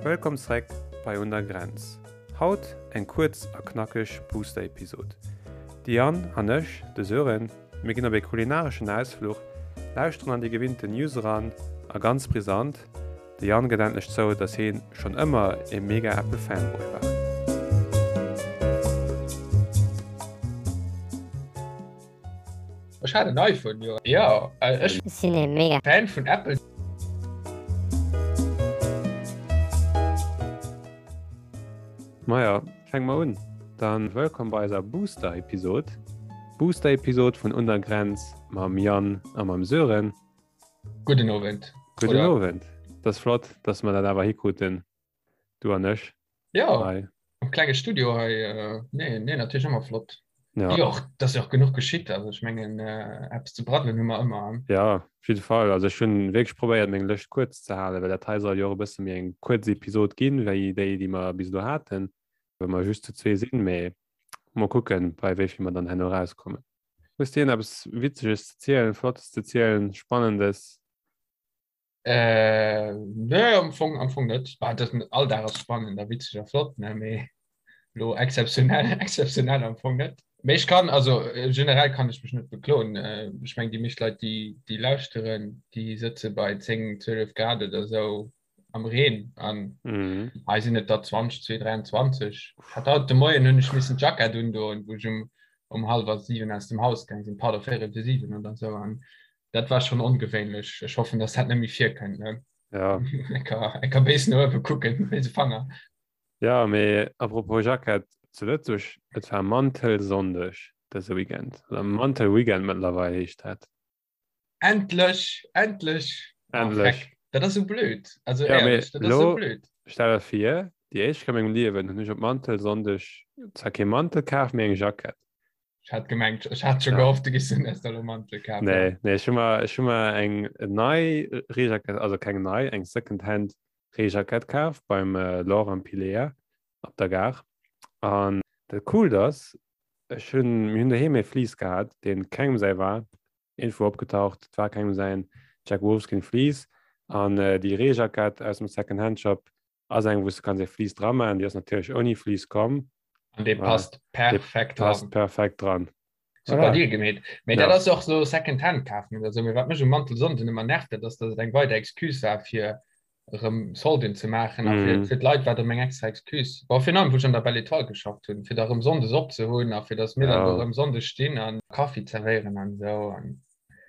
Wëllkomm zréck bei Un der Grenz. Haut eng kuerz a knackeg Booster-Episod. De Yann an ech, de Sören, mir ginn op ee kulinareschen Ausfluch, lauschteren an déi gewinnten News eran a ganz brisant, De Yann gëtt endlech zou, dass heen schonn ëmmer ee mega Apple Fanboy war. Ech hat en iPhone, jo. Jo, ech sinn ee mega Fan vun Apple. Maja, fänke mer un. Dann wëllkomm bei eiser Booster-Episod. Booster-Episod vun Un der Grenz mam Yann a mam Sören. Gudden Owend. Gudden Oder? Owend. Dat ass flott, dass mer dat awer hikruten, du an ech. Ja, hei. am klenge Studio hei. Äh, nee, nee, natierlech ëmmer flott. Ja. Jo, dat ass jo och genuch geschitt. Also ech mengen, äh, eppes ze braddelen hu mer ëmmer. Ja, op jidde Fall. Also ech hunn wierklech probéiert, meng Lëscht kuerz ze halen, well dat hei soll jo och e bësse méi eng kuerz Episod ginn, wéi déi, déi mer bis elo haten, well mer just zu zwee sinn. Mee mol kucken, bei wéi vill mer dann herno erauskommen. Hues de eppes Witzeges ze zielen, Flottes ze zielen, Spannendes? Äh, nee, am Fong, am Fong net. Bah, das, all Dag ass spannend a witzeg a flott, ne? Mee lo exzeptionell, exzeptionell am Fong net. Mee ech kann, also äh, generell kann ech mech net bekloen. Äh, ech meng, déi meescht Leit, déi, déi lauschteren, déi sëtze bei 10, 12 Grad oder sou am Reen an Mhm. hei sinn et der 20, 2, 23. Ich hat haut de Moien hunn ech missen d'Jackett undoen, wou ech um, um hallwer 7 aus dem Haus gaang sinn, pardon, véierel fir 7 oder sou an dat war schon ongewéinlech. Ech hoffen, dass dat net méi virkënnt, ne? Ja. Enker, enker béis no uewe kucken, béise Fanger. Ja, mee apropos Jackett, zu Lëtzebuerg, et war Mantelsonndeg dëse Weekend, oder Mantelweekend mëttlerweil heescht dat. Endlech, endlech. Endlech. Oh, dat ass so blöd. Also ja, ehrlich, dat ass so blöd. Stell dir vir, déi éischt Kéier a mengem Liewen hunn ech op Mantelsonndeg zwar kee Mantel kaf, mee eng Jackett. Ech hat gemengt, ech hat scho Ja. gehofft, du giss den erst elo Mantel kafen. Nee, nee, ech hu mer, ech hu mer eng nei Reejackett, also keng nei, eng Secondhand Reejackett kaf beim äh, Laure am Pilea op der Gare. An dat Coolt ass, Ech hunn, mir hunn doheem ee Fleece gehat, deen kengem säi war, iergendwou opgetaucht, et war kengem säin, Jack Wolfskin Fleece. An déi Reejackett aus dem Second-Hand Shop ass eng, wou s de kanns ee Fleece dra maachen. Déi ass natierlech ouni Fleece komm. An dee passt perfekt dran. Passt perfekt dran. Super Deal gemeet. Mee dat ass och sou Second Hand kafen oder sou. Mee wat mech um Mantelsonnden ëmmer nervt, dat ass, datt et eng weider Excuse war fir erëm Solden ze maachen. A fir, fir d'Leit war et erëm eng extra Excuse. Bon, virun allem wou ech an der Belle Etoile geschafft hunn, fir da erëm sonndes op ze hunn a fir datt mir dann do erëm sonndes stinn a Kaffi zerwéieren an esou. An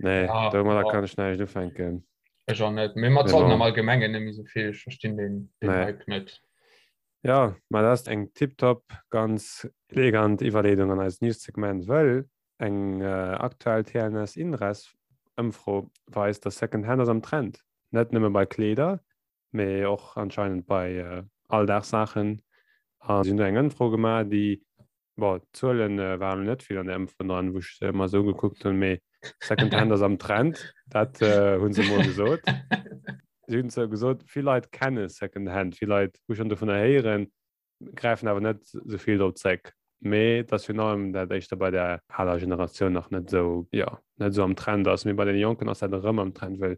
Nee, domadder kann ech näischt ufänken. Ech och net. Mee mat Solden am Allgemengen net méi sou vill. Ech verstinn deen Hype net. Jo, ma dat ass eng tiptop, ganz elegant Iwwerleedung an eist News-Segment, wëll eng aktuell TNS-Inres-Ëmfro weist, dass Secondhand ass am Trend. Net nëmme bei Kleeder, mee och anscheinend bei Alldagssaachen. A si hunn do eng Ëmfro gemaach, déi Bon, d'Zuelen waren elo net vill an der Ëmfro dran, wou ech se ëmmer esou gekuckt hunn, mee Secondhand ass am Trend, dat hu se emol gesot. Si hunn zwar gesot, vill Leit kenne Secondhand, vill Leit hu schonn dovunner héieren, gräifen awer net esou vill drop zréck. Mee et ass virun allem dat éischter bei der aler Generatioun nach net esou, jo, net esou am Trend ass. Mee bei deene Jonken ass dat erëm am Trend, well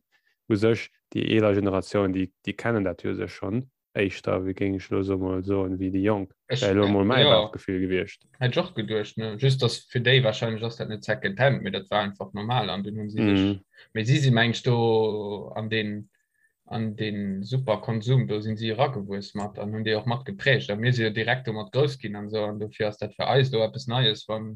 u sech déi eeler Generatioun, déi, déi kennen dat jo u sech schonn. éischter, wéi géing ech elo sou mol soen, wéi déi Jonk. Ech, Wär elo mol mäi jo, Bauchgefill gewiescht. hätt ech och geduecht, ne? Just dass fir déi wahrscheinlech ass dat net Second Hand, mee dat war einfach normal an dunn hunn si sech, Mhm. mee si si meng ech do an deen, an deen super Konsum do sinn si eragewuess mat an hunn déi och mat geprägt a mir si jo direkt domat grouss ginn an esou an dofir ass dat fir eis elo eppes Neies, wann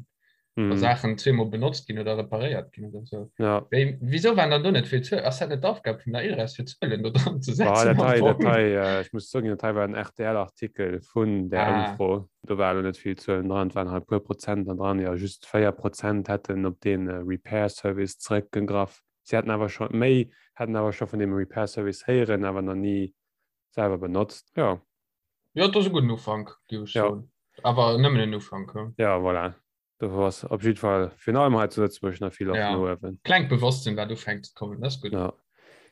wa Mhm. Saachen zweemol benotzt ginn oder reparéiert ginn oder sou. Ja. Wéi, wieso waren dann do net vill Zuelen? Ass dat net d'Aufgab vun der ILRES fir Zuelen do dran ze Boah, setzen dat am hei, dat Fong? hei, äh, ech muss zouginn, dat hei war en RTL-Artikel vun der Ah. Ëmfro. Do war elo net vill Zuelen dran, et waren halt e puer Prozent da dran. Jo, just 4 Prozent hätten op dee Repair Service zeréckgegraff. Si hätten awer scho méi, hätten awer scho vun deem Repair Service héieren, awer nach ni selwer benotzt. Jo. Jo, dat ass e gudden Ufank, géif ech Ja. soen. Awer nëmmen en Ufank, hu. Ja, voilà. Do ass op jiddwer Fall virun allem hei zu Lëtzebuerg nach vill Loft Ja. no uewen. Klengt Bewosstsinn, wat ufänkt ze kommen, dat ass gutt. Ja.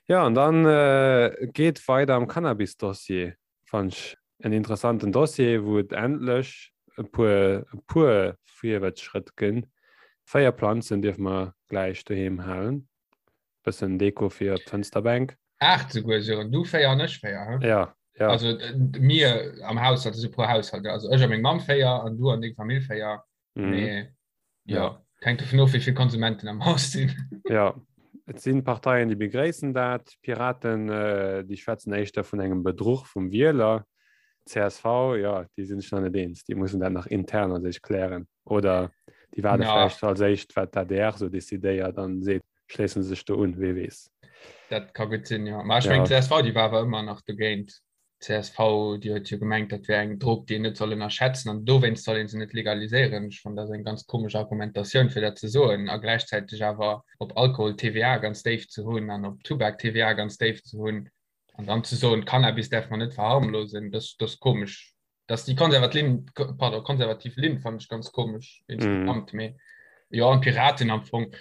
Ja, an dann äh, geet weider am Cannabis-Dossier. Fand ech en interessanten Dossier, wou et endlech e puer, e puer Virwärtsschrëtt ginn. 4 Planzen dierfe mer gläich doheem halen. Bëssen Deko fir op d'Fënsterbänk. 8 souguer, Sören. Du 4 an ech 4, he? Ja. Ja. Also äh, mir am Haushalt, also pro Haushalt, also ech a meng Mamm 4 an du an deng Famill 4. Mhm. Mee, ja, Ja. hänkt dovun of, wéi vill Konsumenten am Haus sinn. Ja, et sinn Parteien, déi begréissen dat. D'Piraten, äh, déi schwätzen éischter vun engem Bedruch vum Wieler. Csv, ja, déi sinn sech nach net eens. Déi mussen dat nach intern a sech klären. Oder déi waarde Ja. vläicht als éischt, wat d'ADR sou decidéiert an seet, schléissen se sech do un, wee weess. Dat ka gutt sinn, jo. Ma ech Ja. mengen, d'CSV, déi war awer ëmmer nach dogéint. D'CSV, déi huet jo gemengt, dat wär eng Drog, déi een net soll ënnerschätzen an dowéinst soll ee se net legaliséieren. Ech fannen, dat ass eng ganz komesch Argumentatioun, fir dat ze soen a gläichzäiteg awer op Alkohol d'TVA ganz déif ze hunn an op Tubak d'TVA ganz déif ze hunn an dann ze soen, Cannabis däerf mer net verharmlosen, dat ass komesch. Dass déi konservat Linn, pardon, konservativ Linn fannen ech ganz komesch insgesamt. Mee jo, an d'Piraten am Fong,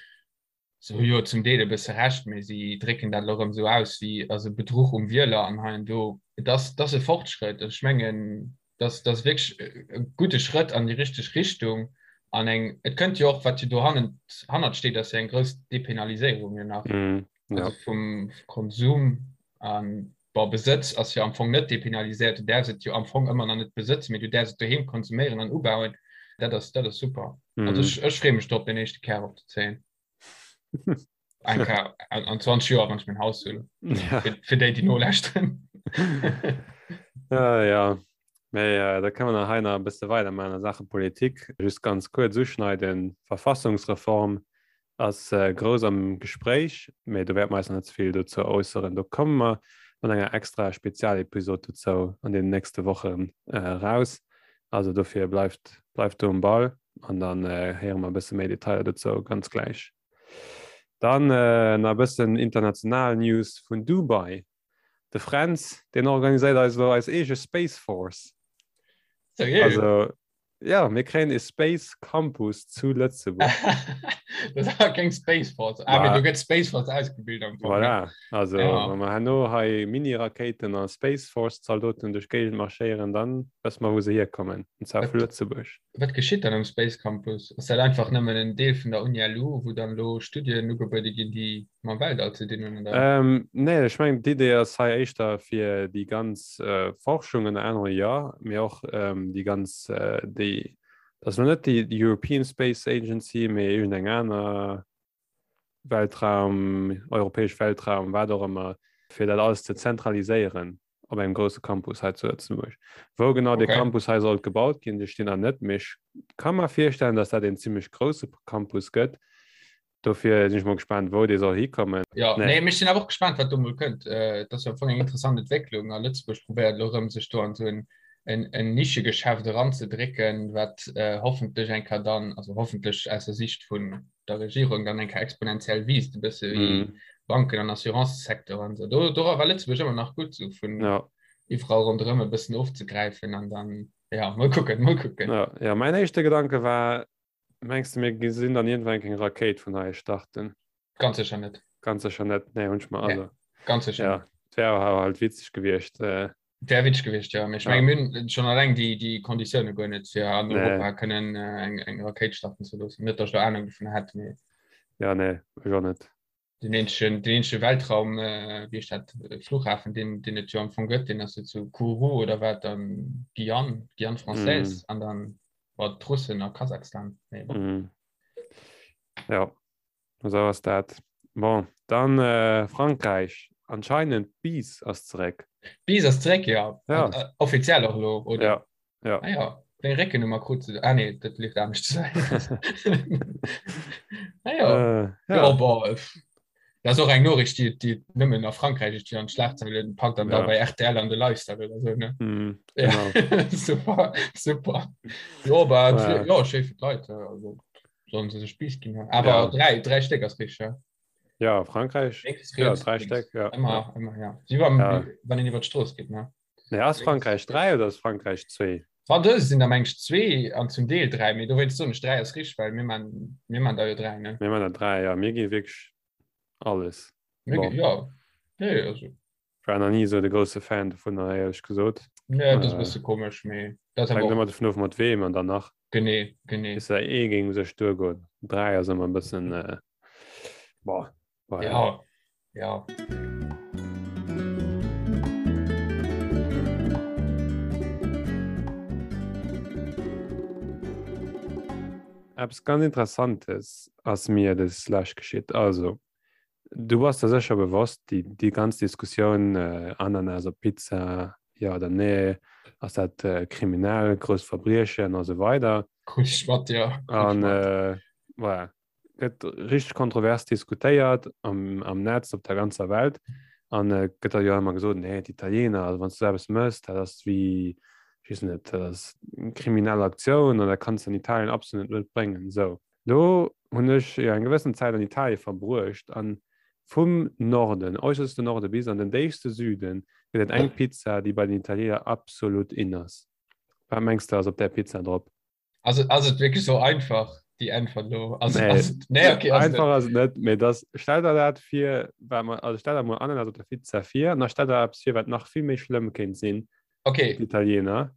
Se hu jo zum Deel e bësse Recht, mee si drécken dat elo erëm esou aus wéi also Bedruch um Wieler an hei an do. Et ass, et ass e Fortschrëtt. Ech mengen, dass dat ass wierklech e gudde Schrëtt an déi richteg Richtung. An eng, et kënnt jo och, wat jo do hannent, hannert steet, ass jo eng grouss Depenaliséierung jo nach, also vum Konsum an, bon, Besëtz ass jo am Fong net depenaliséiert. Du däerfs et jo am Fong ëmmer nach net besëtzen, mee du däerfs et doheem konsuméieren an ubauen. Dat ass, dat ass super. Also ech, ech freeë mech drop, den éischte Kär opzezéien. Eng Kéier an, an 20 Joer, wann ech mäin Haus hunn. Ja. Fir, fir déi, déi nolauschteren. Ja, ja. Mee äh, da kënne mer nach hei nach e bësse weidermachen a Saache Politik. Just ganz kuerz uschneiden, Verfassungsreform ass grouss am Gespréich, mee do wäerte mer eis nach net ze vill dozou äusseren. Do komme mer mat enger extra Spezialepisod dozou an deenen nächste Wochen eraus. Also dofir bleift, bleift do um Ball an dann héiere mer e bësse méi Detailer dozou ganz gläich. Dann nach e bëssen international News vun Dubai. De Fränz, deen organiséiert eis elo eis eege Space Force. Seriö? Also, ja, mir kréien e Space Campus zu Lëtzebuerg. Dat ass awer keng Space Force. Ah, mee do gëtt Space Force ausgebilt am Fong. Voilà, also ja. wa mer herno hei Mini-Rakéiten a Space Force-Zaldoten duerch d'Géigend marschéieren, dann wësse mer, wou se hierkommen, und zwar vu Lëtzebuerg. Wat geschitt dann um Space Campus? Ass dat einfach nëmmen en Deel vun der Uni LU, wou dann elo Studien ugebuede ginn, déi mam Weltall ze dinn hunn, oder? Ähm, nee, ech mengen d'Idee ass hei éischter fir déi ganz äh, Forschung ënner anerem, jo, mee och ähm, déi ganz äh, déi, dat ass elo net déi European Space Agency, mee iergendeng aner Weltraum, europäesch Weltraum, wat och ëmmer, fir dat alles ze zentraliséieren op engem grousse Campus hei zu Lëtzebuerg. Wou genau okay. de Campus hei sollt gebaut ginn, de stinn an net mech kann mer virstellen, dass dat en ziemlech grousse Campus gëtt. Dofir sinn ech mol gespannt, wou dee soll hikommen. Ja, nee. nee mech sinn awer och gespannt, wat do mol kënnt. Äh, dat ass jo am Fong eng interessant Entwécklung a Lëtzebuerg probéiert elo rëm sech do an esou en en, en Nischegeschäft eranzedrécken, wat äh, hoffentlech eng Kéier dann, also hoffentlech aus der Sicht vun der Regierung dann eng Kéier exponentiell wiisst, e bësse wéi mm. Banken an Assurancesecteur an so. Do, do war Lëtzebuerg ëmmer nach gutt, so vun ja. iwwerall ronderëm e bëssen ofzegräifen an dann, ja, mol kucken, mol kucken. Ja, ja, mein éischte Gedanke war, Mengs de mir gesinn dann iergendwann eng Rakéit vun hei starten? Ganz sécher net. Ganz sécher net, nee hunn ech mer Nee, also. ganz sécher Ja, net. et wär awer halt witzeg gewiescht. Äh, Wär witzeg gewiescht, ja. Mee ech ja. menge mir hunn schonn alleng déi, déi Konditioune guer net, fir an Nee. Europa kënnen äh, eng, eng Rakéit starten ze loossen. Net, datt ech do Anung dovun hätt, mee Ja, nee, ech och net. den eenzegen, den eenzege Weltraum, äh, wéi heescht dat, Flughafen, deen, deen et jo am Fong gëtt, deen ass jo zu Kourou oder wat an Guyane, Guyane française Mm. an dann bon, d'Russen a Kasachstan. Mee bon. Mm. Ja, esou ass dat. Bon, dann äh, Frankräich. Anscheinend d'Bise ass zeréck. D'Bise ass zeréck, ja. Ja. An, äh, offiziell och elo, oder? Ja, ja. Ah ja, deng Réckennummer krut se. Ah nee, dat leeft anescht. Ah ja. Äh, Ja, ja. bon, äh, dat ass och eng Noriicht, déi, déi nëmmen a Frankräich déi an d'Schlagzeilen packt an da Ja. bei RTL an de Lifestyle oder sou, ne? Mm, Ja, genau. super, super. Jo, aber Ja. ja, schéi fir d'Leit, äh, also sollen se sech Bis ginn. Awer Ja. dräi, dräi Stéck ass richtig, ja. Ja, Frankräich. Lénks, Ja, riets, dräi lénks. Stéck, ja. Ëmmer, Ja. ëmmer, ja. Wéi wann, Ja. wann een iwwer d'Strooss geet, ne? Nee, ass Frankräich 3 oder ass Frankräich 2? Fransouse sinn der meng ech 2 an zum Deel 3, mee dowéinst soen ech 3 ass richteg, well mir man, mir man der jo 3, ne? Mir man der 3, ja. Mir gi wierklech alles. Mir gi, Bon. ja. Nee, also. Ich war nach nie esou de grousse Fan dovunner, éierlech gesot. Nee, dat ass e Äh, bësse komesch, mee dat ass hänkt awer ëmmer och. dovun of, mat weem an dann nach. Genee, genee. Bis der ee géing u sech duergoen. 3 ass ëmmer e bëssen, äh, boah, voilà. Ja, ja. Eppes ganz Interessantes ass mir des Lescht geschitt. Also, du bass der sécher bewosst, déi, déi ganz Diskussioun äh, Ananas op Pizza, ja oder nee, ass dat äh, kriminell, grousst Verbriechen a sou weider. Krut ech mat, ja. Krut ech An mat. äh, voilà. Gëtt richteg kontrovers diskutéiert am, am Netz, op der ganzer Welt. An äh, gëtt da jo ëmmer gesot, nee, d'Italiener, also wann du sou eppes mëss, dat ass wéi, ech weess net, dat ass eng kriminell Aktioun an dat kanns du an Italien absolut net bréngen. Sou, lo hunn ech jo eng gewëssen Zäit an Italie verbruecht an vum Norden, äusserste Norde bis an den déifste Süden gëtt et eng Pizza, déi bei den Italiener absolut in ass. Wat mengs de ass op där Pizza drop? Also ass et wierklech sou einfach déi Äntwert lo? Also, nee. ass, nee, okay, ass einfach ass et net, mee das stell der dat vir, wat man, also stell der mol Ananas op der Pizza vir an da stell der eppes vir, wat nach vill méi schlëmm kéint sinn. Okay. D'Italiener.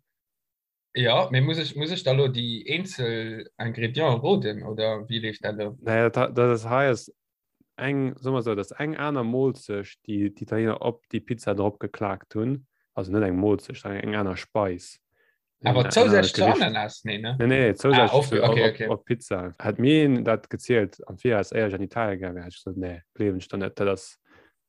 Ja, mee muss ech, muss ech da lo déi eenzel Ingredienten roden oder wéi leeft dat lo? Nee, dat, dat ass hei ass eng, soe mer esou, dat ass eng aner Molzecht, déi d'Italiener op déi Pizza drop geklaakt hunn. Also net eng Molzecht, eng aner Speis. Awer zousätzlech zu Ananas? Nee, ne? Nee, nee, zousätzlech ah, zu, okay, okay. op, op Pizza. Hätt mir een dat gezielt am Viraus, éier ech an Italien gaange wär, hätt ech gesot, nee, gleewen ech der net, dat ass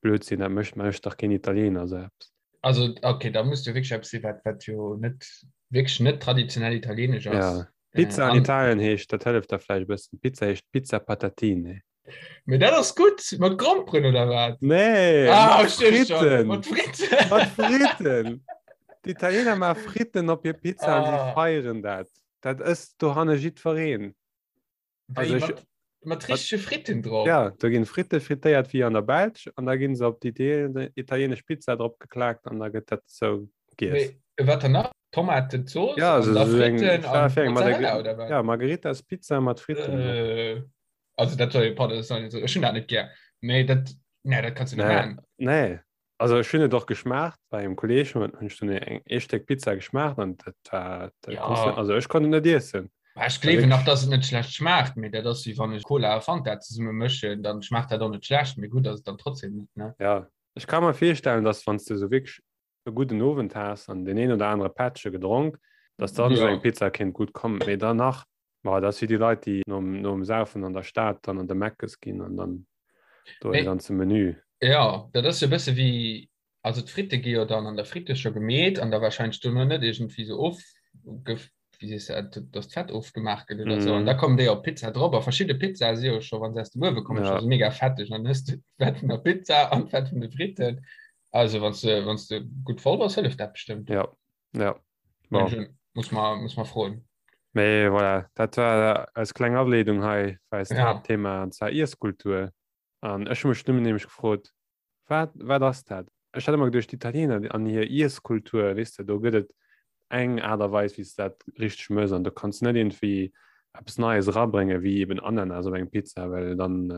Blödsinn, dat mécht mécht dach keen Italiener esou eppes. Also, okay, da muss jo wierklech eppes sinn, wat, wat jo net, wierklech net traditionell italienesch ass. Ja. Pizza an Italien heescht, dat hëlleft der vläicht e bëssen, Pizza heescht Pizza Patatine. Mee dat ass gutt, mat Gromperen oder wat? Nee, ah, mat Fritten. Mat Fritten. Mat Fritten. D'Italiener maache Fritten op hir Pizza an si ah. feieren dat. Dat ësst dohanne jiddwereen. Also ech, mat, mat richtege Fritten drop? Ja, do ginn Fritte frittéiert wéi an der Belsch an da ginn se op déi italienesch Pizza drop geklaakt an da gëtt dat sou giess. Mee wat dann nach? Tomatenzooss ja, also, an da Fritten an Mozzarella oder wat? Ja, Margheritas Pizza mat Fritten. Äh. Also dat soll pardon, das soll ech hunn dat net gär. Mee dat nee, dat kannst du net maachen. Nee. Also ech hunn et och geschmaacht bei engem Kolleeg hunn ech dunn eng ee Stéck Pizza geschmaacht an dat war dat ja. konntest net, also ech konnt et net iessen. Ech gleewen nach, dass et net schlecht schmaacht, mee dat ass wéi wann ech Cola a Fanta zesumme mëschen, dann schmaacht dat och net schlecht, mee gutt ass et dann trotzdem net, ne? Ja, ech ka mer virstellen, dass wann s de sou wierklech e gudden Owend has an deen een oder anere Pättche gedronk, dass dann esou eng Pizza kéint gutt kommen. Mee dann nach, ma dat ass wéi déi Leit, déi nom, nom Saufen an der Stad dann an de Meckes ginn an dann do e ganze Menü. Jo, dat ass jo e bësse wéi, also d'Fritte gi jo dann an der Fritte scho gemeet an da warscheinlech dono net iergendwéi sou ofge, wéi sees de dat, dass d'Fett ofgemaach gëtt oder sou. An da kommen déi op d'Pizza drop. A verschidde Pizzae si jo scho, wa se aus dem Uewe kommen, scho sou mega fetteg. An dann hues de d'Fett vun der Pizza an d'Fett vun de Fritten. Also wann du wann du gutt voll bass, hëlleft dat bestëmmt. Ja, ja. Bon. Muss man, muss man froen. Mee voilà, dat war als kleng Ableedung hei fir eist ja. Haaptthema an zwar Iesskultur. An ech hu mech nëmmen nämlech gefrot, wat, wat ass dat? Ech hat ëmmer geduecht, d'Italiener an hir Iesskultur, weess de, do gëtt et eng Aart a Weis, wéi s de dat richteg mëss an do kanns de net iergendwéi eppes Neies erabréngen, wéi eben Ananas op eng Pizza, well dann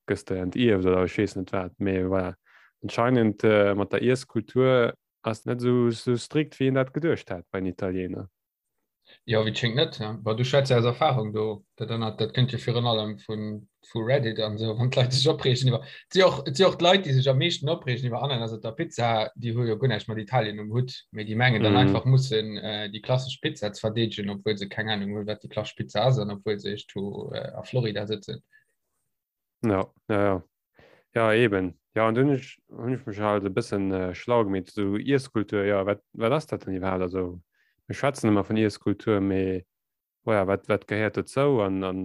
gëss de entierft oder ech weess net wat. Mee voilà, anscheinend mat der Iesskultur ass net esou strikt, wéi een dat geduecht hat bei den Italiener. Jo, wéi et schéngt net. Bon, du schwätz jo aus Erfahrung do. Dat anert, dat kënnt jo virun allem vun, vu Reddit an esou, wann d'Leit sech opreegen iwwer. Et si och, et si och d'Leit, déi sech am meeschten opreegen iwwer Ananas op der Pizza, déi hu jo guer näischt mat Italien um Hutt, mee déi mengen dann einfach mussen déi klassesch Pizza ze verdeedegen, obwuel se keng Anung hunn, wat déi klassesch Pizza ass an obwuel se iergendwou a Florida sëtzen. Ja, ja, ja. Ja, eben. Ja, an dunn hunn ech, hunn ech mech halt e bëssen schlau gemeet, esou Iesskultur, ja, wat, wat ass dat dann iwwerhaapt? Also, mir schwätzen ëmmer vun Iesskultur, mee voilà, wat, wat gehéiert dozou an, an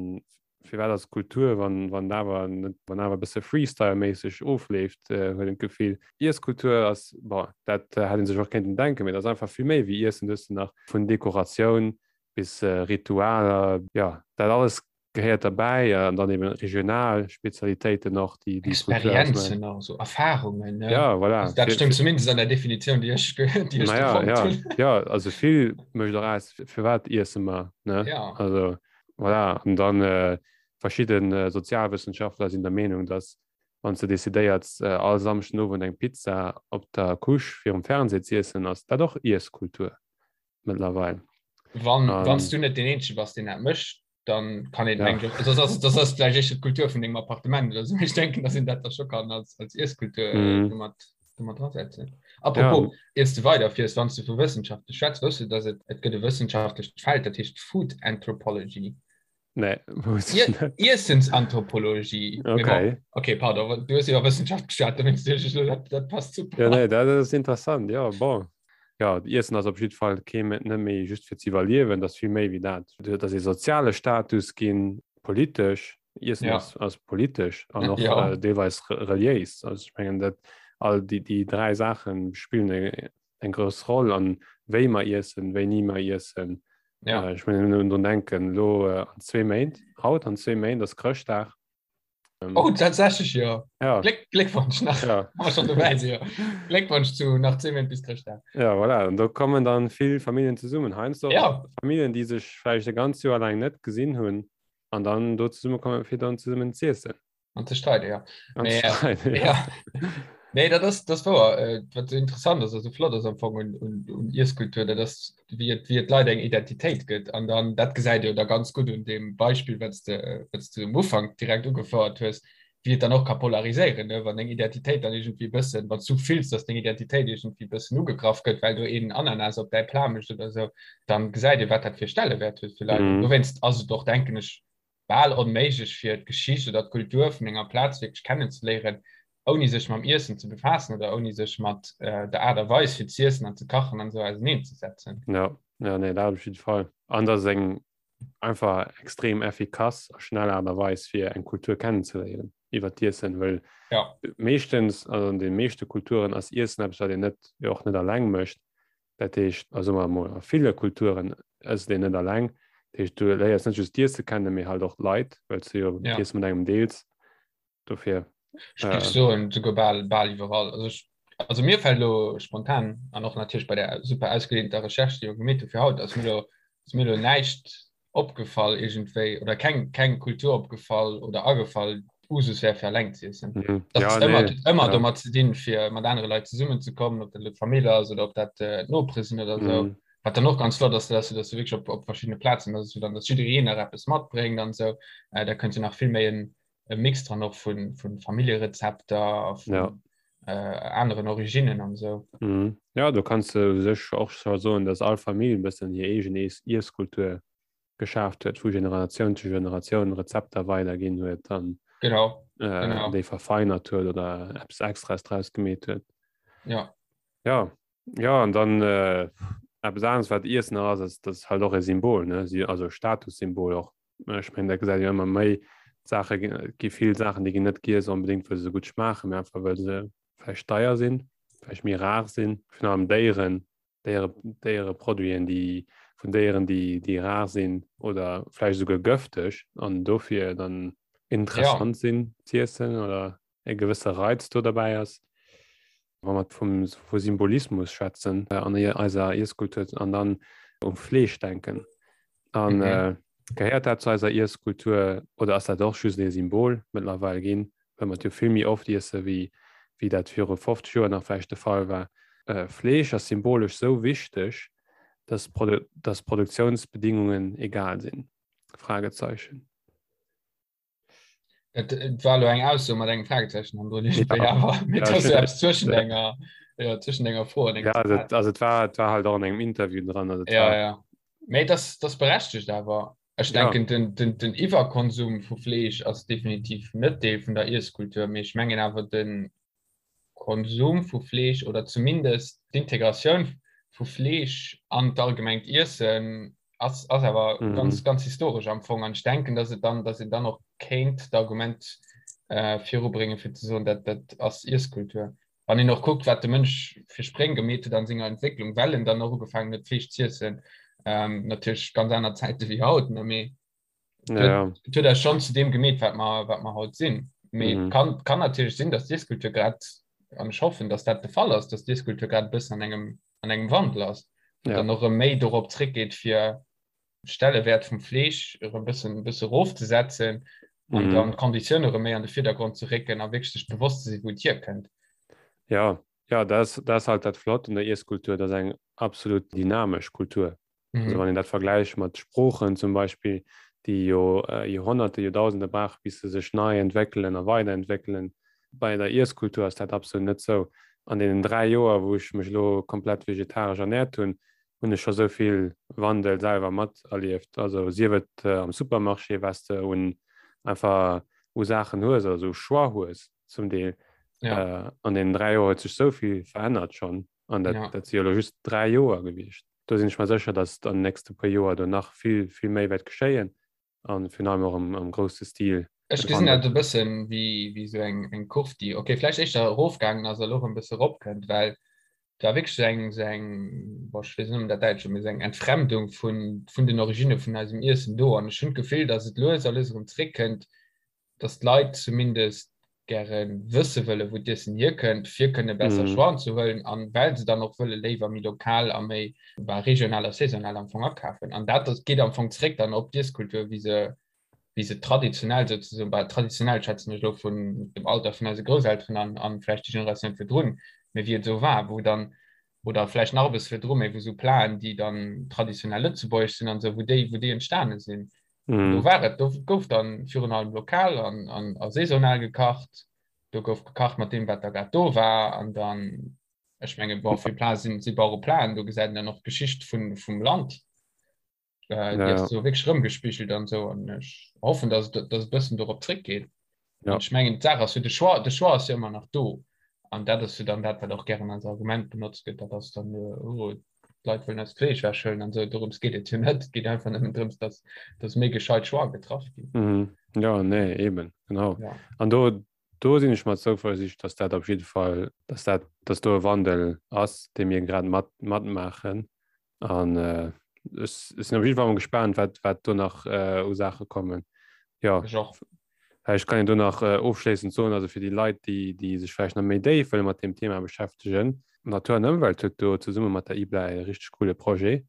firwat ass Kultur, wann, wann awer net, wann awer e bësse Freestyle-méisseg ofleeft, huet een d'Gefill. Iesskultur ass, bon, dat hätt ee sech och kéinten denken, mee dat ass einfach vill méi wéi Iessen. Du hues nach vun Dekoratioun bis Ritualer, jo, dat alles gehéiert derbäi an dann eben regional Spezialitéiten och, déi déi Kultur ausmaachen. Experienzen och, esou Erfahrungen, ne? Ja, voilà. Also dat stëmmt zumindest an der Definitioun, déi ech, déi ech do fonnt hunn. Ja, ja, also vill mécht och aus, firwat iesse mer, ne? Ja. Also voilà, an dann verschidde Sozialwëssenschaftler sinn der Meenung, dass wann s de decidéierts, all Samschden Owend eng Pizza op der Couche virum Fernseh z'iessen, ass dat och Iesskultur mëttlerweil. Wann, wann s du net deen Eenzege bass, deen dat mécht, dann kann een ja. mengen, das ass, das ass vielleicht echt d'Kultur vun dengem Appartement oder so. Ich denken, dass een dat da scho kann als, als Iesskultur mhm. domat, domat drasetzen. Apropos, ja. iers du weiderfiers, wann du vu Wëssenschaften schwätz, wësst du, dass et, et gëtt e wëssenschaftlecht Feld, dat heescht Food Anthropology. Nee, wusst ech net. Iessensanthropologie. Okay. Okay, pardon, du hues iwwer Wëssenschaft geschwat, dowéinst duecht ech elo, dat, dat passt super. Ja, nee, dat ass interessant, ja, bon. Ja, Iessen ass op jiddwer Fall kee, net méi just fir ze iwwerliewen, dat ass vill méi wéi dat. Et ass ee soziale Status ginn, politesch. Iessen ja. ass, ass politesch an och ja. äh, deelweis reliéis. Also ech mengen, dat all déi, déi dräi Saache spillen eng grouss Roll an wéi mer iessen, wéini mer iessen. Ja. Äh, ech mengen nëmmen drun denken, lo äh, an zwee Méint, haut an zwee Méint ass Chrëschtdag. Ähm, oh, tatsächlich, ja. ja. Gléck, Gléckwonsch nach. Ja. Haben wir schon dabei, ja. Gléckwonsch zu nach 10 Méint bis Chrëschtdag. Ja, voilà. Und do kommen dann vill Familien zesummen. Heiansdo ja. Familien, déi sech vläicht e ganz Joer laang net gesinn hunn an dann do zesummekommen, fir dann zesummen z'iessen. An ze streiden, ja. An ze streiden, ja. ja. Nee, dat ass, dat wouer. Äh, wat interessant ass, also flott ass am Fong un, un, un Iesskultur, dat ass, wéi et, wéi et Leit eng Identitéit gëtt. An dann, dat gesäit jo da ganz gutt un deem Beispill, wat s de, wat s de um Ufank direkt ugefouert hues, wéi et dann och ka polariséieren, ne? Wann deng Identitéit dann iergendwéi e bëssen, wann s du fills, dass deng Identitéit iergendwéi e bëssen ugegraff gëtt, well do een Ananas op däi Plat mécht oder esou, dann gesäit ee, wat dat fir Stellewäert huet fir Leit. Mm. Dowéinst ass et och, denken ech, bal onméiglech fir d'Geschicht oder d'Kultur vun enger Plaz wierklech kennenzeléieren, ouni sech mam Iessen ze befaassen oder ouni sech mat der Aart a Weis fir z'iessen an ze kachen an esou auserneenzësetzen. Jo, jo, nee, dat op jidde Fall. An dat ass eng einfach extrem effikass a schnell Aart a Weis fir eng Kultur kennenzeléieren iwwer d'Iessen, well ja. meeschtens, also an de meeschte Kulturen ass Iessen eppes, wat een net, jo och net alleng mécht. Dat heescht, also soe mer emol, a ville Kulturen ësst een net alleng. Dat heescht, du léiers net just d'Iesse kennen, mee halt och d'Leit, well s du jo ja. d'Iesse mat engem deels. Dofir. Ech géif äh, soen, souguer bal, bal iwwerall. Also, ech, also mir fält elo spontan an och natierlech bei der super ausgedehnter Recherche, déi mer gemeet hu fir haut, ass mir elo, ass mir elo näischt opgefall iergendwéi oder keng, keng Kultur opgefall oder agefall, Usus wär fir alleng ze iessen. Mhm. Dat Ja, ass ëmmer, nee. ëmmer Ja. domat ze dinn, fir mat anere Leit zesummenzekommen, ob dat elo d'Famill ass oder ob dat äh, d'Nopere sinn oder esou. Mhm. Wat dann och ganz flott ass, dass du, dass du wierklech op, op verschiddene Plazen, dass du dann, dass jiddereen nach eppes matbréngt an esou. Äh, da kënnt jo nach vill méi en, e Mix dran och vun, vun Familljerezepter a vun Ja. äh, aneren Originnen an esou. Mhm. Ja, do kanns du u sech och scho soen, dass all Famill e bëssen hir eegen Iess Iesskultur geschaaft huet, vu Generatioun zu Generatioun Rezepter weiderginn huet an genau, äh, genau. déi verfeinert huet oder eppes Extraes draus gemeet huet. Ja. Ja, ja an dann äh, eppes aneres wat Iessen nach ass, ass das halt och e Symbol, ne? Si, also Statussymbol och. Ech mengen, dat gesäit jo ëmmer méi Saache gi vill Saachen, déi ginn net giess onbedéngt, well se sou gutt schmaachen, mee einfach well se vläicht deier sinn, vläicht méi rar sinn, virun allem Déieren, Déiere, Déiereproduiten, déi vun Déieren, déi, déi rar sinn oder vläicht esouguer gëfteg an dofir dann interessant ja. sinn z'iessen oder e gewësse Reiz do derbäi ass. Wa mer vum, vu Symbolismus schwätzen äh, an eiser Iesskultur an dann um Fleesch denken. An mhm. äh, gehéiert dat zu eiser Iesskultur oder ass dat och just e Symbol mëttlerweil ginn? well mer et jo vill méi oft iesse wéi wéi dat viru 50 Joer nach vläicht de Fall war. Fleesch ass symbolesch sou wichteg, dass dass d'Produktiounsbedingungen egal sinn? Fragezeichen. Et et war elo eng Ausso mat engem Fragezeichen hannendrun, iergendwéi, awer mee et ass jo eppes zwëschen enger, jo, zwëschen enger Fro an engem Ja, also Zitat. et also et war et war halt och an engem Interview dran, also et Ja, war ja. Mee et ass, et ass berechtegt awer. Ech Ja. denken, den, den, den Iwwerkonsum vu Fleesch ass definitiv net Deel vun der Iesskultur, mee ech mengen awer de Konsum vu Fleesch oder zumindest d'Integratioun vu Fleesch an d'allgemengt Iessen ass, ass awer Mhm. ganz, ganz historesch am Fong. An ech denken, dass et dann, dass een dann och kéint d'Argument äh, virubréngen, fir ze soen, dat, dat ass Iesskultur. Wann een och kuckt, wat de Mënsch fir Spréng gemeet huet an senger Entwécklung, well en dann och ugefaangen huet, Fleesch z'iessen, ähm, natierlech ganz aner Zäite wéi haut, ne, mee et Ja, ja. huet, et huet eis schonn zu deem gemeet, wat mer, wat mer haut sinn. Mee et Mhm. kann, kann natierlech sinn, dass d'Iesskultur grad, an ech hoffen, dass dat de Fall ass, dass d'Iesskultur grad e bëssen an engem, an engem Wandel ass, Ja. dann och erëm méi dorop zréckgeet, fir Stellewäert vum Fleesch erëm bëssen bësse rofzesetzen an Mhm. dann d'Konditioune erëm méi an de Virdergrond ze récken a wierklech sech bewosst ze sinn, wou et hierkënnt. Ja, ja, dat ass, dat ass halt dat Flott un der Iesskultur, dat ass eng absolut dynamesch Kultur. Also Mhm. wann een dat vergläicht mat Sproochen zum Beispill, déi jo äh, Joerhonnerte, Joerdausende brauche bis se sech nei entwéckelen a weiderentwéckelen, bei der Iesskultur ass dat absolut net sou. An deenen 3 Joer, wou ech mech elo komplett vegetaresch ernäert hunn, hunn ech scho sou vill Wandel selwer materlieft. Also sief et am Supermarché, wat s de un einfach u Saachen hues, also u Choix hues zum Deel. Ja. An deenen 3 Joer huet sech sou vill verännert schonn. An dat, ja. dat si jo elo just 3 Joer gewiescht. Do sinn ech mer sécher, datt an den nächste puer Joer do nach vill, vill méi wäert geschéien. An virun allem och am, am grousse Stil. Ech gesinn dat e bëssen wéi, wéi sou eng, eng Kurv, déi, okay, vläicht éischter erofgaangen ass a lo erëm e bësse eropkënnt, well et war wierklech sou eng, sou eng, bon, ech weess net, ob dat Däitsch ass, mee sou eng Entfremdung vun, vun den Originne vun eisem Iessen do. An ech hunn d'Gefill, datt et lues a lues erëm zréckkënnt, dass d'Leit zumindest gäre wësse wëlle wou d'Iessen hierkënnt, fir kënne besser mm. Choixen ze huelen an well se dann och wëlle léiwer méi lokal a méi bah, regional a saisonal am Fong akafen. An dat das geet am Fong zréck dann op d'Iesskultur, wéi se wéi se traditionell sozusagen, bah, traditionell schätzen ech lo vun dem Alter vun eise Grousselteren an, an vläicht déi Generatioun virdrun, mee wéi et esou war, wou dann oder vläicht nach e bësse virdru, mee wou sou Platen, déi dann traditionell lëtzebuergesch sinn an esou, wou déi, wou déi entstane sinn. Mm. Do war et, do gouf dann virun allem lokal an, an, a saisonal gekacht. Do gouf gekacht mat deem, wat da grad do war. An dann, ech menge bon, vill Plate sinn si Bauere Platen, do gesäit een dann och d'Geschicht vun, vum Land. Äh, déi ass so wierklech rëmgespigelt an esou. An ech hoffen, dass et, dass et bëssen dorop zréckgeet. Ja. An ech mengen, d'Saach ass jo, de Choix, de Choix ass jo ëmmer nach do. An dat ass jo dann dat, wat och gären als Argument benotzt gëtt, dat ass dann, oh, d'Leit wëllen eist Fleesch wechhuelen an esou. Dorëms geet et jo net. Et geet einfach nëmmen drëms, dass, dass méi gescheit Choix getraff ginn. Mhm. Ja, nee, eben, genau. Ja. An do, do sinn ech mer zouversiicht, dass dat op jidde Fall, dass dat, dass do e Wandel ass, dee mir grad mat, matmaachen. An äh, ech, ech sinn op jidde Fall mol gespaant, wat, wat do nach äh, u Saache kommen. Ja. Ech och. Ech kann do nach äh, ofschléissend soen, also fir déi Leit, déi, déi sech vläicht nach méi déif wëlle mat deem Thema beschäftegen, Natur an Ëmwelt huet do zesumme mat der IBLA e richteg coole Projet.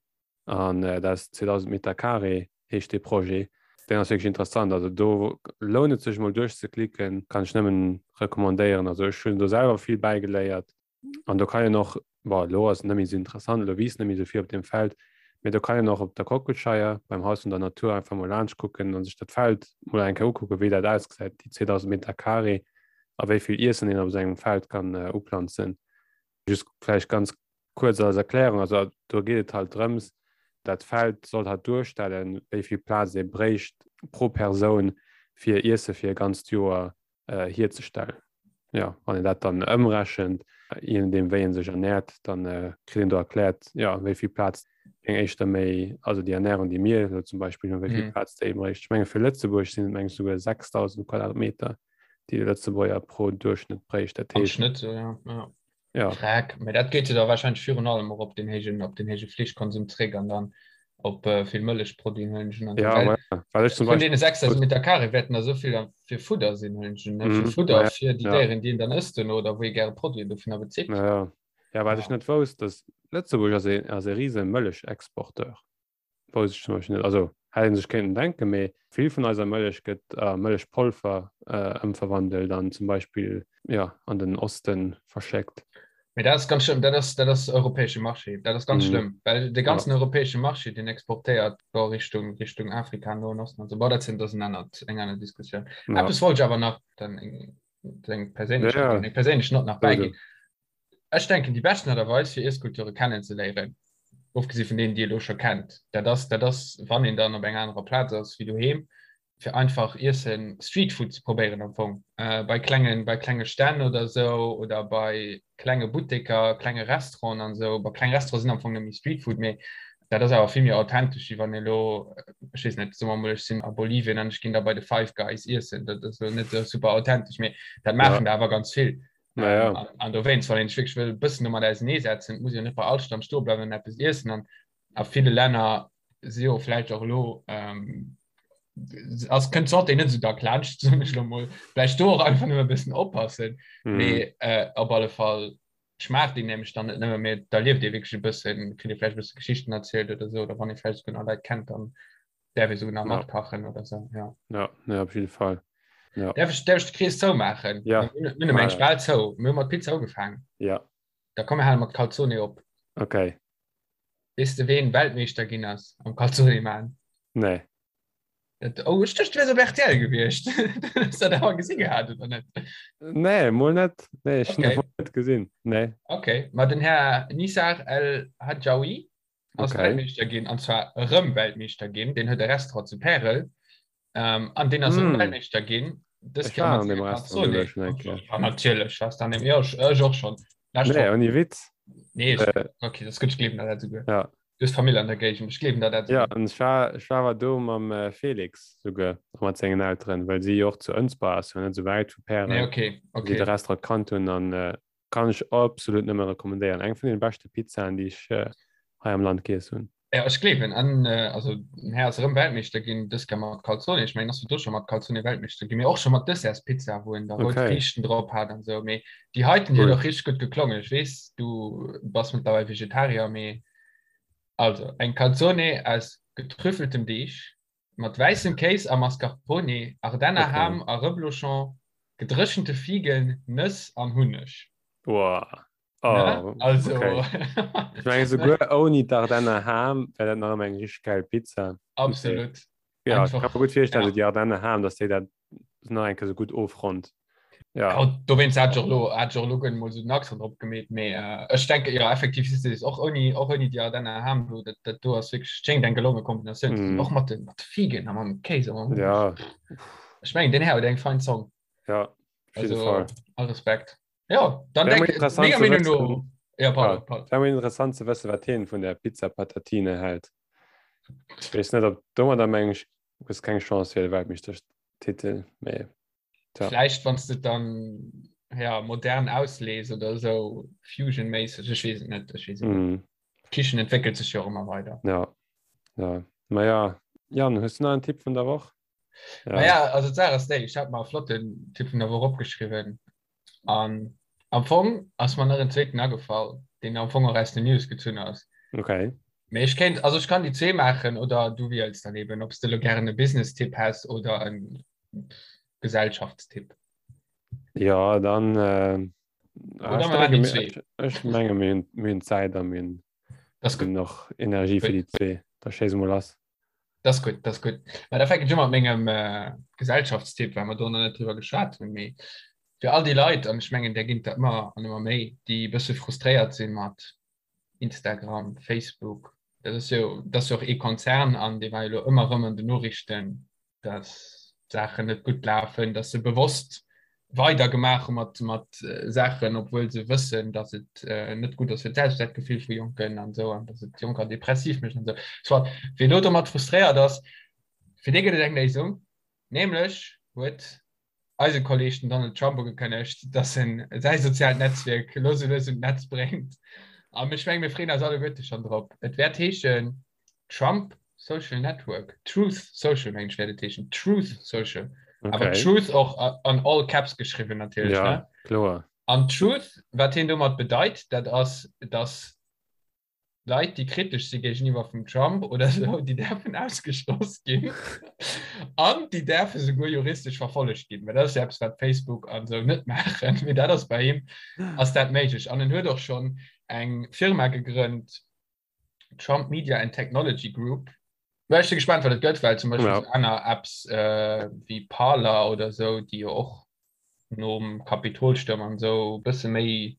An äh, dat ass 2000 Meter Carré heescht dee Projet. Deen ass wierklech interessant. Also do lount et sech mol duerchzeklicken, kann ech nëmmen recommandéieren. Also ech hunn do selwer vill bäigeléiert. An do kann een och, bon, elo ass et net méi esou interessant, elo wiisst net méi esou vill op deem Feld, mee do kann een och op der Kockelscheier beim Haus vun der Natur einfach mol laanscht kucken a sech dat Feld mol eng Kéier ukucken, wéi dat ausgesäit, déi 2.000 Meter carré a wéi vill Iessen een op esou engem Feld kann uplanzen. Just vläicht ganz kuerz als Erklärung, also do geet et halt drëms, dat Feld soll halt duerstellen, wéi vill Plaz ee bréicht pro Persoun fir Iesse fir e ganzt Joer äh, hierzestellen. Ja, wann een dat dann ëmrechent, je nodeem wéi een sech ernährt, dann äh, kritt een do erkläert, ja, wéi vill Plaz eng éischter méi, also déi Ernährung, déi mir elo zum Beispill hunn, wéi vill mm. Plaz déi bréicht. Ech menge fir Lëtzebuerg sinn et meng souguer 6000 Quadratmeter, déi de Lëtzebuerger pro Duerchschnëtt bréicht. Dat heescht, Am Schnëtt, so, ja. ja. Ja. Freck, mee dat geet jo da wahrscheinlech virun allem och op den héijen, op den héije Fleeschkonsum zréck an dann op äh, vill Mëllechproduiten huelen ech un. Ja, well, ma, well ech zum Vun deene 6000 Meter Carré wäerten der souvill dann fir Fudder sinn, huelen ech un, ne? Fir Mhm, Fudder ma ja, fir déi ja. Déieren, déi een dann ësst duerno oder wou ee gäre Produiten dovunner bezitt. Ja, ja. Ja, wat Ja. ech net wousst, dass Lëtzebuerg ass e, ass e riese Mëllechexporteur. Wousst ech zum Beispill net. Also hätt een sech kéinten denken, mee vill vun eiser Mëllech gëtt a Mëllechpolver ëmverwandelt an zum Beispill, jo, an den Oste verschéckt. Mee dat ass ganz schlëmm, dat ass, dat ass europäesche Marché, dat ass ganz schlëmm, well de ganzen europäesche Marché, deen exportéiert do Richtung, Richtung Afrika, Noen Osten an esou. Bon, dat sinn, dat ass en anert, eng aner Diskussioun. Eppes wollt ech awer nach dann eng, eng perséinlech, eng perséinlech Nott nach bäiginn. Ech denken, déi beschten Aart a Weis, fir Iesskulture kennenzeléieren, ofgesi vun deenen, déi ee lo scho kennt, dat ass, dat ass, wann een dann op enger anerer Plaz ass wéi doheem, fir einfach Iessen, Streetfood ze probéieren am Fong, bei klengen, bei klenge Stänn oder esou oder bei klenge Butteker, klenge Restauranten an esou. Bon, kleng Restaurante sinn am Fong net méi Streetfood, mee dat ass awer vill méi authentesch, wéi wann ee lo, ech weess net, soe mer emol, ech sinn a Bolivien an ech ginn da bei de Five Guys iessen. Dat ass lo net esou super authentesch, mee dat maachen der awer ganz vill. Naja. Ähm, an, an dowéinst, wann een sech wierklech wëll e bëssen domat auseneesetzen, muss een jo net bei all Stand stoe bleiwen an eppes iessen. An a ville Länner si jo vläicht och elo, ähm, ass, kënnt d'Santé net esou dack laanscht, soen ech elo mol. Vläicht do och einfach nëmme e bëssen oppassen. Mhm. Mee äh, op alle Fall schmaacht een nämlech dann net nëmme, mee da lieft ee wierklech e bëssen, kritt ee vläicht e bësse Geschichten erzielt oder esou, oder wann ee vläicht esouguer nach Leit kennt, dann därf ee souguer nach Ja. matkachen oder esou, ja. Ja, ja, op jidde Fall. Ja. Därf ech, därf ech de Krees zoumaachen? Ja. Mir hunn mir hunn eng bal zou. Mir hu mat Pizza ugefaangen. Ja. Da komm mir hale mat Calzone op. Okay. Weess de ween Weltmeeschter ginn ass am Calzone maan? Nee. Dat, oh, ech duecht du wäers op RTL gewiescht. Hues dat awer gesi gehat oder net? Nee, mol net. Nee, ech hunn Okay. dat net gesinn. Nee. Okay, ma den Här Nizar El Hadjaoui. Ass okay. Weltmeeschter ginn an zwar erëm Weltmeeschter ginn. Den huet e Restaurant zu Pärel. Ähm, an den ass mm. Weltmeeschter ginn. Dës Kéier mat senger Calzone. Ja, natierlech warst an dem ja, ech, ech och schon. Nee, ouni Witz. Nee, ich, äh, okay, das gëtt gleewen dat souguer. Ja. Du hast Famill an der Géigend, ech gleewen der dat. Ja, an ech war, ech war awer do mam äh, Felix souguer, a mat sengen Elteren, well si jo och zu Ënsber ass, jo net sou wäit vu Pärel. Nee, okay, okay. Si de Restaurant kannt hunn an äh, kann ech absolut nëmme rekommendéieren. Eng vun den beschte Pizzaen, déi ech äh, hei am Land giess hunn. Ja, ech gleewen an äh, also den Här ass erëm Weltmeeschter ginn, dës Kéier mat Calzone. Ech mengen, ass du scho mat Calzone Weltmeeschter ginn, mee och scho mat Dessertspizza, wou en da rout Okay. Friichten drop hat an sou. Mee déi heiten, déi Cool. huet och richteg gutt geklongen. Ech weess, du bass mëttlerweil Vegetarier, mee also eng Calzone aus getrüffeltem Deeg mat wäissem Kéis a Mascarpone, Ardenner Okay. Ham a Reblochon, gedréchente Figen, Nëss an Hunneg. Wow. Ne? Oh, Also okay. Ech menge souguer ouni d'Ardenner Ham wär dat nach ëmmer eng richteg geil Pizza. Absolut. Ja, ich kann Einfach, mir gut virstellen, ja. so déi Ardenner Ham, dass déi dat nach eng Kéier sou gutt ofronnt. Ja. Ja, dowéinst hat ech och lo, hat ech och lo guer mol sou den Accent drop gemeet, mee äh, ech denke jo effektiv siehst du och ouni, och ouni déi Ardenner Ham do, dat, dat do ass wierklech, schéngt eng gelonge Kombinatioun ze sinn, Mm. och mat de, mat de Figen a mam Kéis a mam Hunneg. Ja, Ech mengen, den Här huet eng fein Zong. ja, op jidde Also, Fall. all Respekt. Ja, dann Wär denk, interessant menger ze Meinung wëssen, no. Ja, pardon, ja, pardon. wär mol interessant ze wëssen, wat hien vun der Pizza Patatine hält. Ech weess net, ob domadder meng ech, hues keng Chance fir de Weltmeeschtertitel, mee tja. Vläicht wann s de dann ja, modern auslees oder sou Fusion-méisseg, ech weess et net, ech weess et net. Mm. D'Kichen entwéckelt sech jo och ëmmer weider. Ja, ja. Ma ja, Jan, hues du nach en Tipp vun der Woch? Ja. Ma ja, also d'Saach ass déi, ech hat mer e flotten Tipp vun der Woch opgeschriwwen an am Fong ass mer nach en zweeten agefall, deen am Fong och aus den News gezunn ass. Okay. Mee ech kéint, also ech kann déi zwee maachen oder du wiels dann eben, ob s de elo gären e Business-Tipp häss oder e Gesellschaftstipp. Ja, dann äh, Oder ech mer maachen denke déi mir, zwee. ech, ech menge mir hunn, mir hunn Zäit a mir hunn Das ist gut. nach Energie fir déi zwee. Da schéiss emol lass. Das ist gut, das ist gut. Ma da fänke ich mat mengem äh, Gesellschaftstipp, well mer do nach net drüber geschwat hunn. Mee fir all déi Leit, an ech mengen, där ginn der ëmmer an ëmmer méi, déi e bësse frustréiert sinn mat Instagram, Facebook, dat ass jo, dat ass jo och ee Konzern an dee war jo elo ëmmer erëm an den Noriichten, dass d'Saachen net gutt lafen, dass se bewosst weider gemaach hu mat, mat Saachen, obwuel se wëssen, dass et net gutt ass fir d'Selbstwertgefill vu Jonken an esou an dass et Jonker depressiv mécht an esou. Soit, wien elo domat frustréiert ass, fir dee gëtt et eng Léisung, nämlech huet eise Kolleg den Donald Trump ugekënnegt, dass en säi soziaalt Netzwierk elo sou lues un d'Netz bréngt. An ech menge mir freeën eis alleguerte schonn drop. Et wäert heeschen Trump Social Network, Truth Social mengen ech wäert et heeschen, Truth Social. Awer Okay. Truth och an all caps geschriwwen natierlech, Ja, ne? kloer. An Truth, wat hien domat bedeit, dat ass, dass Leit, déi kritesch si géigeniwwer vum Trump oder esou, déi däerfen ausgeschloss ginn an déi däerfe souguer juristesch verfollegt ginn. Well dat ass jo eppes, wat Facebook an esou net maachen, mee dat ass bei him ass dat méiglech. An en huet och schonn eng Firma gegrënnt, Trump Media and Technology Group. Mä ech si gespaant, wat et gëtt, well zum Beispill Ja. sou aner Apps äh, wéi Parler oder esou, déi jo och nom Kapitolstuerm an esou e bësse méi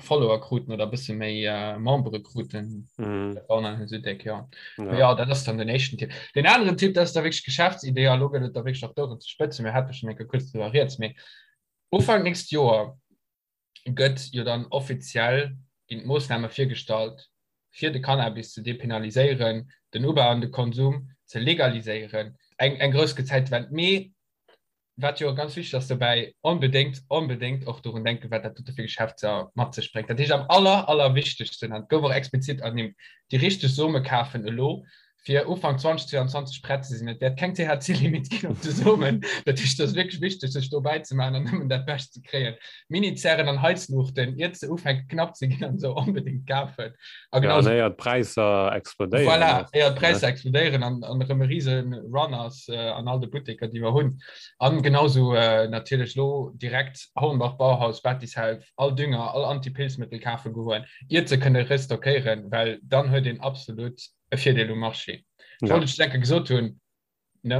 Follower kruten oder e bësse méi äh, Membere kruten. Mhm. Dat war nach net esou déck, ja. Ja. Ja, dat ass dann den éischten Tipp. Den aneren Tipp, dat ass da wierklech Geschäftsidee, a lo gëtt et da wierklech och dorun ze spëtzen, mir hate schonn eng Kéier kuerz driwwer rieds, mee Ufank nächst Joer gëtt jo dann offiziell ginn d'Moossname virgestallt, fir de Cannabis ze depenaliséieren, den Ubau an de Konsum ze legaliséieren. Eng, eng grouss Gezäitwend. Mee wat jo ganz wichteg ass dobäi, onbedéngt, onbedéngt och dorun denken, wat dat dote fir Geschäfter mat sech bréngt. Dat heescht am aller, allerwichtegsten, an et gouf och explizit ernimmt, déi richteg Some kafen elo, fir Ufank 2022 prett ze sinn. Et wäert keng THC-Limit ginn op de Somen. Dat heescht, et ass wierklech wichteg, sech do bäizemaachen an nëmmen dat Bescht ze kréien. Mini-Zären an Heizluuchten, iert se ufänke knapp ze ginn an esou, onbedéngt kafen. A genau ja, éier d'Präisser explodéieren. Voilà, éier d'Präisser explodéieren an, an erëm e rise Run ass äh, an all de Butteker, déi mer hunn. An genauso äh, natierlech lo direkt Hornbach, Bauhaus, Battishelf, all Dünger, all Antipilzmëttel kafe goen, iert se kënne restockéieren, well dann huet een absolut e Virdeel um Marché. Ja. Wollt ech denke gesot hunn ne?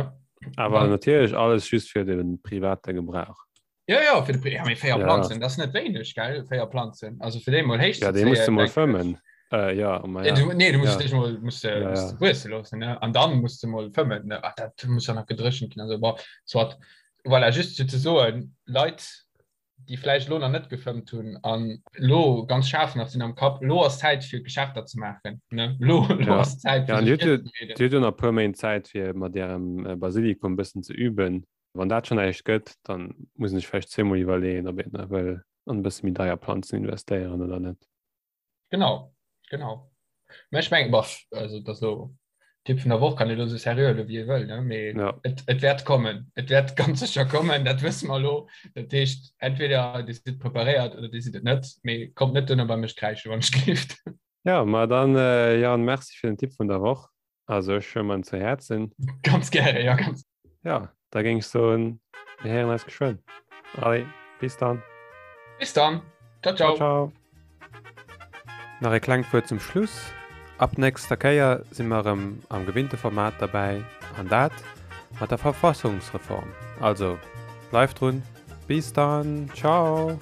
Awer natierlech alles just fir de private Gebrauch. Ja ja fir de ja, méi féier ja. Planzen, dat net wéineg gell féier Planzen. Also fir déi mol héich Ja, dee muss du mol fëmmen. Äh, ja, ma ja. Du, nee, du musst ja. dech mol musst, ja, musst ja. wuesse loossen ne? An dann musst du mol fëmmen ne? Ach, dat muss ja nach gedréchent ginn. Also, bon, soit. Voilà, just fir ze soen, Leit, déi vläicht lo nach net gefëmmt hunn an lo ganz schaarf nach sinn am Kapp, lo ass Zäit fir Geschäfter ze maachen. Ne? Lo, lo ja. ass Zäit fir ja, dir hutt jo nach e puer Méint Zäit fir mat ärem äh, Basilikum bëssen ze üben. Wann dat schon näischt gëtt, dann muss een sech vläicht zweemol iwwerleeën, ob een wëll an e bësse méi deier Planzen investéieren oder net. Genau, genau. Mä ech mengen, boah, also dat lo Tipp vun der Woch kann ee lo sou seriö huele wéi ee wëll, ne? Mee ja. et, et wäert kommen. Et wäert ganz sécher kommen, dat wësse mer lo. Dat heescht, entweder Dir sidd preparéiert oder Dir sidd et net. Mee kommt net duerno bei mech kräische wann ech gelift. Ja, ma dann äh, Jan, merci fir den Tipp vun der Woch. Also ech huele mer en zu Häerzen. Ganz gäre, ja ganz. Ja, da géing ech soen, mir héieren eis geschwënn. Allez, bis dann. Bis dann. Ciao, ciao. Ciao, ciao. Nach e klengt Wuert zum Schluss. Ab nächster Kéier si mer erëm am gewinnte Format derbäi, an dat mat der Verfassungsreform. Also, bleift drun. Bis dann. Ciao.